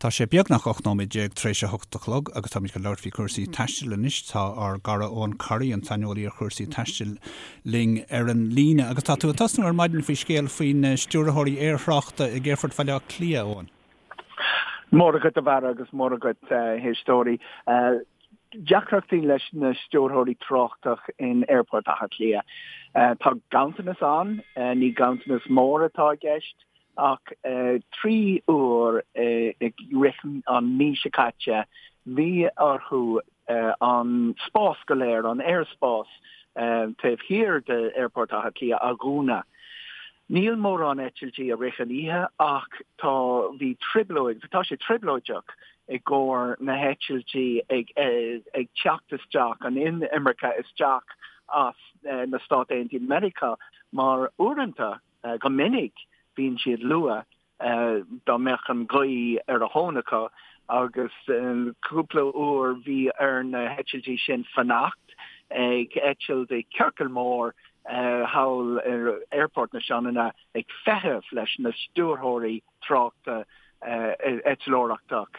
Tá sé beagnach 18 nóiméad tar éis a hocht a chlog agus táimid chun labhairt faoi chúrsaí taistil anois. Tá ár gcara Eoin Corry, an saineolaí ar chúrsaí taistil, linn ar an líne. Agus tá tú ag tosnú ar maidin faoi scéal faoi na stiúrthóirí aerthráchta ag Aerfort Bhaile Átha Cliath, Eoin. Móra agat a Bharra agus móra agat a éisteoirí. Deacrachtaí leis na stiúrthóirí tráchtach in Aerfort Átha Cliath. Tá ganntanas ann, ní ganntanas mór atá i gceist, Ach 3 uair i rith an mí seo caite bhí orthu an spás go léir, an aerspás taobh thiar d'Aerfort Átha Cliath a dhúnadh. Níl mórán eitiltí i rith an oíche ach tá, bhí trioblóid, tá sé trioblóideach i gcomhair na heitiltí ag ag teacht isteach, an inimirce isteach as na Stáit Aontaithe Meiriceá mar uaireanta, Go minic bíonn siad luath dá mbeadh an ghaoth ar a thóin acu agus cúpla uair bhí ar na heitiltí sin fanacht ag eitilt i ciorcal mór thall ar Aerfort na Sionainne ag feitheamh leis na stiúrthóirí tráchta eitleoireachtach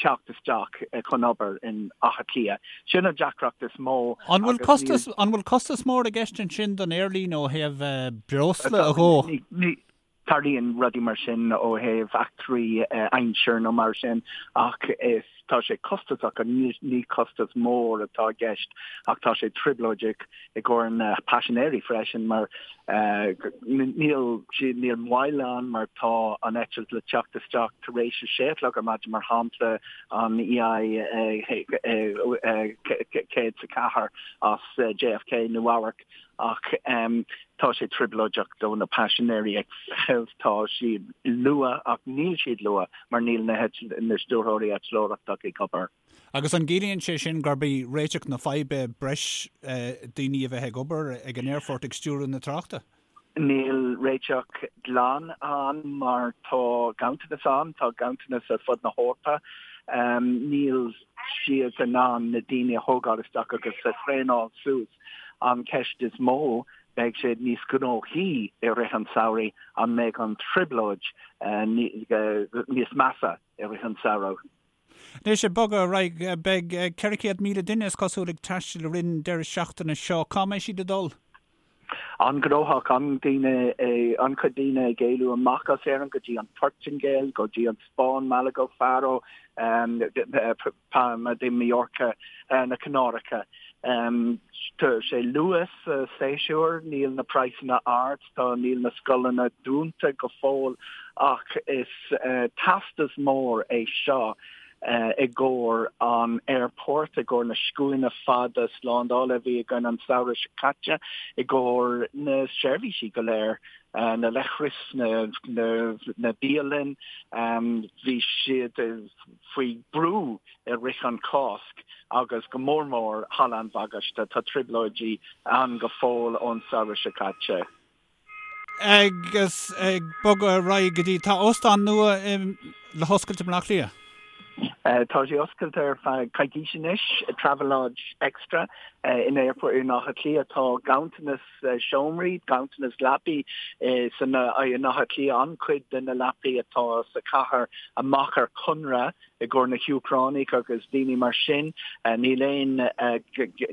teacht isteach chun obair in Áth Cliath. Sin an deacracht is mó. An bhfuil costas, an bhfuil costas mór i gceist ansin don aerlíne ó thaobh breosla a dhó? Ní tarlaíonn rudaí mar sin ó thaobh eachtraí aimsir nó mar sin ach is tá sé costasach ní ní costas mór atá i gceist ach tá sé trioblóideach i gcomhair na paisinéirí freisin mar níl siad níl moill ann mar tá an eitilt le teacht isteach tar éis a sé a chlog ar maidin mar shampla an EI 104 as JFK Nua-Eabhrac ach tá sé trioblóideach do na paisinéirí ag feitheamh tá siad luath ach níl siad luath mar níl na na stiúrthóirí eitleoireachtach ag obair. Agus an gciallaíonn sé sin gurb í réiteach na faidhbe breis daoine a bheith ag obair ag an aerfort ag stiúradh na tráchta? Níl réiteach glan ann mar tá ganntanas ann, tá ganntanas ar fud na hEorpa. Níl siad in ann na daoine a thógáil isteach agus a thraenáil suas. An ceist is mó, beidh sé níos gnóthaí i rith an tsamhraidh, an mbeidh an trioblóid níos measa i rith an tsamhraidh? Anois, ag bogadh ar aghaidh, beidh 400,000 duine, is cosúil, ag taisteal i rith an deireadh seachtaine seo. Cá mbeidh siad ag dul? An-ghnóthach, an-daoine, an-chuid daoine ag éalú amach as Éirinn go dtí an Phortaingéil, go dtí an Spáinn, Malaga, Faro, Palma de Mallorca, na Canáracha. Tá sé luath sa séasúr, níl na praghsanna ard, tá, níl na scoileanna dúnta go fóill ach is teastas mór é seo i gcomhair an aerport, i gcomhair na scuaine fada slándála a bhí againn an samhradh seo caite, i gcomhair na seirbhísí go léir, na leithris, na bialann, bhí siad faoi brú i rith an Cásc agus go mór mór Halla an Bhagáiste. Tá trioblóidí ann go fóill ón samhradh seo caite. Agus ag bogadh ar aghaidh go dtí, tá óstán nua le hoscailt i mBleá Cliath. Tá sé oscailte ar feadh coicís anois, Travelodge Extra in Aerfort in Áth Cliath. Tá ganntanas seomraí, ganntanas leapaí san in Áth Cliath, an-chuid de na leapaí atá sa chathair amach ar conradh i gcomhair na hÚcránaigh agus daoine mar sin. Níl aon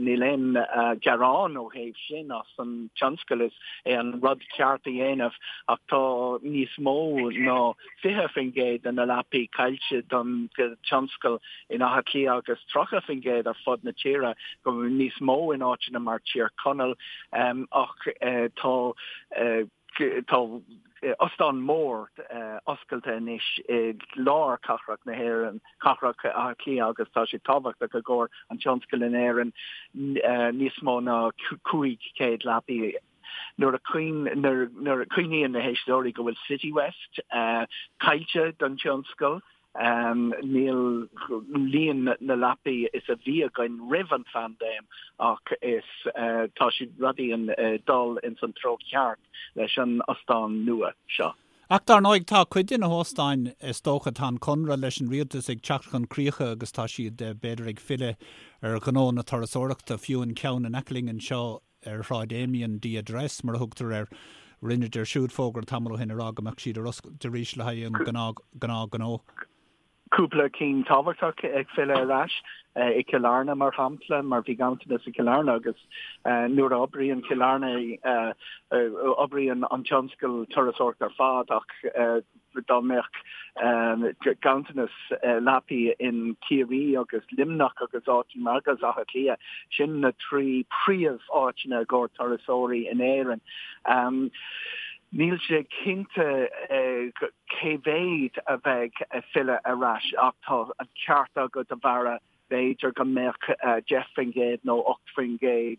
níl aon gearán ó thaobh sin as an tionscal, is é an rud ceart a dhéanamh ach tá níos mó ná 20% de na leapaí caillte don tionscal in Áth Cliath agus 30% ar fud na tíre, go níos mó in áiteanna mar Tír Chonaill ach tá tá ostán mór oscailte anois i lár cathrach na hÉireann, cathrach Átha Cliath agus tá sé tábhachtach i gcomhair an tionscail in Éirinn níos mó ná 500 leapaí. Nuair a chuimhníonn na héisteoirí go bhfuil Citywest caillte don tionscal, níl líon na leapaí is a bhí againn roimh an phaindéim ach is tá siad rudaí ag dul ins an treo ceart leis an ostán nua seo. Ach dar ndóigh tá cuid de na hóstáin, is dócha, tá an conradh leis an rialtas ag teacht chun críche agus tá siad b'fhéidir ag filleadh ar ghnó na turasóireachta, fiú an ceann in aice linn anseo ar Shráid Amiens, The Address mar a thugtar air, rinneadar siúd fógra tamall ó shin a rá go mbeadh siad ar oscailt arís le haghaidh an gnáthghnó. Cúpla cinn tábhachtach ag filleadh ar ais i Cill Airne, mar shampla, mar bhí ganntanas i Cill Airne agus nuair a oibríonn Cill Airne, oibríonn an tionscal turasóireachta ar fad ach dá mbeadh ganntanas leapaí in Ciarraí agus Luimneach agus áiteanna mar agus Áth Cliath, sin na trí príomh-áiteanna i gcomhair turasóirí in Éirinn. Níl sé cinnte cé mhéad a bheidh ag filleadh ar ais ach tá an ceart agat a Bharra, b'fhéidir go mbeadh 10% nó 8%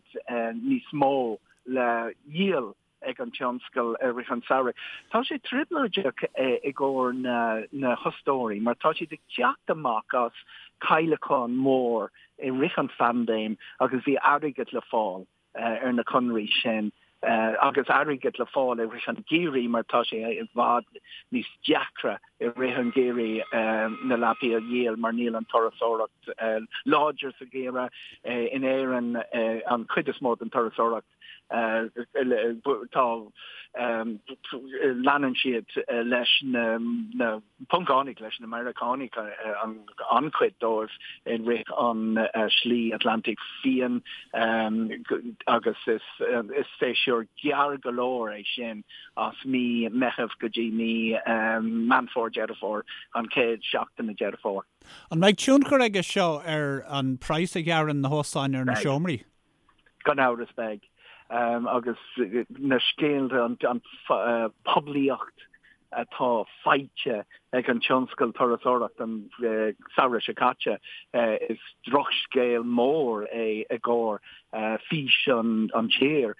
níos mó le dhíol ag an tionscal i rith an samhraidh. Tá sé trioblóideach i gcomhair na hostóirí mar tá siad ag teacht amach as cailleachán mór i rith an phaindéim agus bhí airgead le fáil. ar na conraí sin agus airgead le fáil i rith an gheimhridh mar tá sé i bhfad níos deacra i rith an gheimhridh na leapaí a dhíol mar níl an turasóireacht láidir sa gheimhreadh. In Éirinn an chuid is mó den turasóireacht tá leanann siad leis na Poncánaigh leis na Meiriceánaigh an-chuid dóibh i rith an Slí Atlantaigh Fiáin agus is séasúr gearr go leor é sin as mí Meitheamh go dtí mí Meán Fómhair, Deireadh Fómhair, an chéad seachtain de Deireadh Fómhair. An mbeidh tionchar aige seo ar an praghas a ghearrann na hóstáin ar na seomraí? Gan amhras beidh. Agus na scéalta, an poiblíocht atá faighte ag an tionscal turasóireachta an samhradh seo caite, is drochscéal mór é i gcomhair fís an tír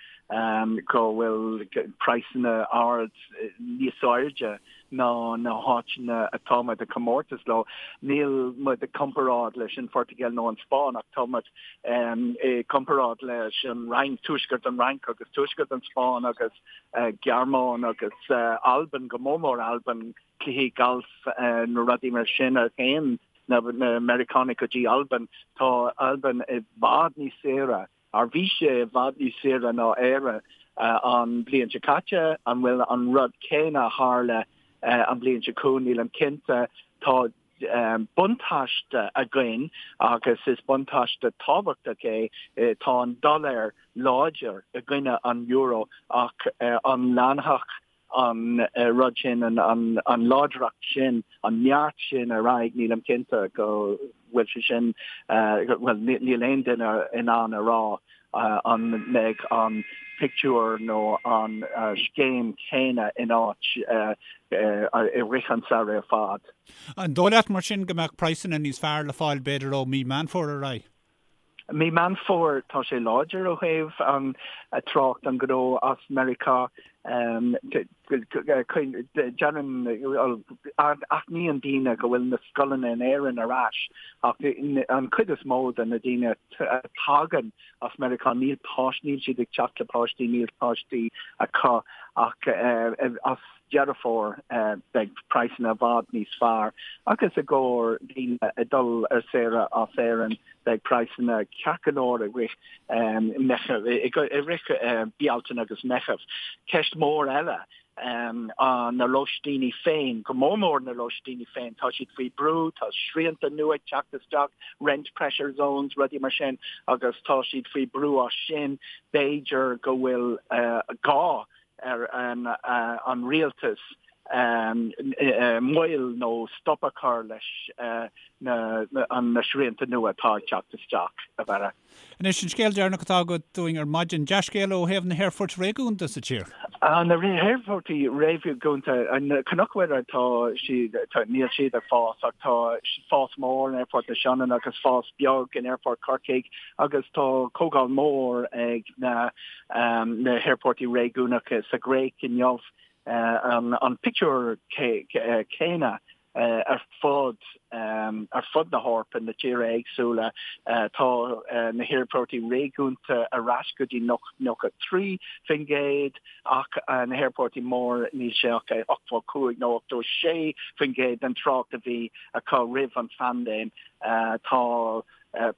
go bhfuil praghsanna ard níos airde ná na háiteanna atá muid ag comórtas leo. Níl muid ag comparáid leis an Phortaingéil nó an Spáinn ach tá muid i gcomparáid leis an Fhrainc, tuaisceart an Fhrainc agus tuaisceart an Spáinn agus Gearmáin agus Albain, go mór mór Albain, cluichí gailf nó rudaí mar sin a théann na Meiriceánaigh go dtí Albain. Tá Albain i bhfad níos saoire Ar bhí sé i bhfad níos saoire ná Éire an bhliain seo caite? An bhfuil an rud céanna a tharla an bhliain seo chugainn? Nílim cinnte. Tá buntáiste againn agus is buntáiste tábhachtach é. Tá an dollar láidir i gcoinne an euro ach an leanfadh an rud sin, an láidreacht sin, an neart sin ar aghaidh, nílim cinnte go bhfuil sé sin, bhuel, níl aon duine in ann a rá an mbeidh an pictiúr nó an scéim chéanna in áit i rith an samhraidh ar fad. An dóigh leat mar sin go mbeadh praghsanna níos fearr le fáil b'fhéidir ó mí Meán Fómhair ar aghaidh? Mí Meán Fómhair, tá sé láidir ó thaobh an trácht an gnó as Meiriceá. Déanann, aithníonn daoine go bhfuil na scoileanna in Éirinn ar ais ach an chuid is mó de na daoine a tagann as Meiriceá níl páistí, níl siad ag teacht le páistí, níl páistí acu ach as Deireadh Fómhair beidh praghsanna i bhfad níos fearr agus i gcomhair daoine ag dul ar saoire as Éirinn beidh praghsanna ceart go leor i rith Meitheamh, i rith Bealtaine agus Meitheamh. Ceist mhór eile na lóistíní féin, go mór mór na lóistíní féin, tá siad faoi brú, tá srianta nua ag teacht isteach, rent pressure zones, rudaí mar sin agus tá siad faoi brú as sin. B'fhéidir go bhfuil gá ar an rialtas moill nó stop a chur leis na srianta nua atá ag teacht isteach, a Bharra. Anois, an scéal deireanach atá agat dúinn ar maidin, dea-scéala ó thaobh na haerfoirt réigiúnda sa tír. Na haerfoirtí réigiúnda, Cnoc Mhuire, tá siad, níl siad ag fás ach tá fás mór in Aerfort na Sionainne agus fás beag in Aerfort Chorcaigh agus tá comhdháil mór ag na na haerfoirtí réigiúnacha sa Ghréig inniu, an pictiúr céanna ar fud ar fud na hEorpa, na tíortha éagsúla. Tá na haerfoirtí réigiúnta ar ais go dtí 93% ach na haerfoirtí mór níl sé ach 85 nó 86% den trácht a bhí acu roimh an phaindéim. Tá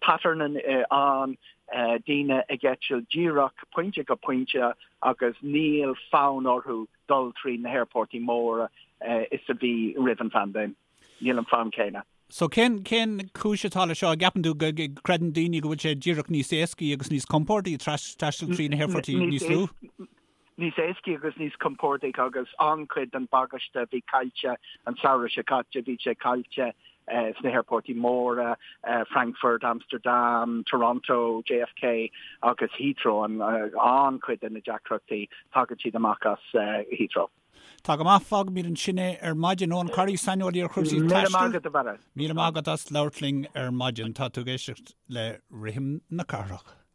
pattern ann, daoine ag eitilt díreach pointe go pointe agus níl fonn orthu dul trí na haerfoirtí móra is a bhí roimh an phaindéim. Níl an fonn céanna. So cén, cén chúis atá le seo? An gceapann tú go gcreideann daoine go bhfuil sé díreach níos éascaí agus níos compordaí taisteal trí na haerfoirtí níos lú? Níos éascaí agus níos compordaí agus an-chuid den bagáiste a bhí caillte an samhradh seo caite, bhí sé caillte sna haerfoirtí móra, Frankfurt, Amsterdam, Toronto, JFK agus Heathrow, an-chuid de na deacrachtaí, tagann siad amach as Heathrow. Tá go maith, fágfaimid ansin é ar maidin. Eoin Corry, saineolaí ar chúrsaí taistil. Míle maith agat, a Bharra. Míle maith agat as labhairt linn ar maidin. Tá tú ag éisteacht le Rithim na Cathrach.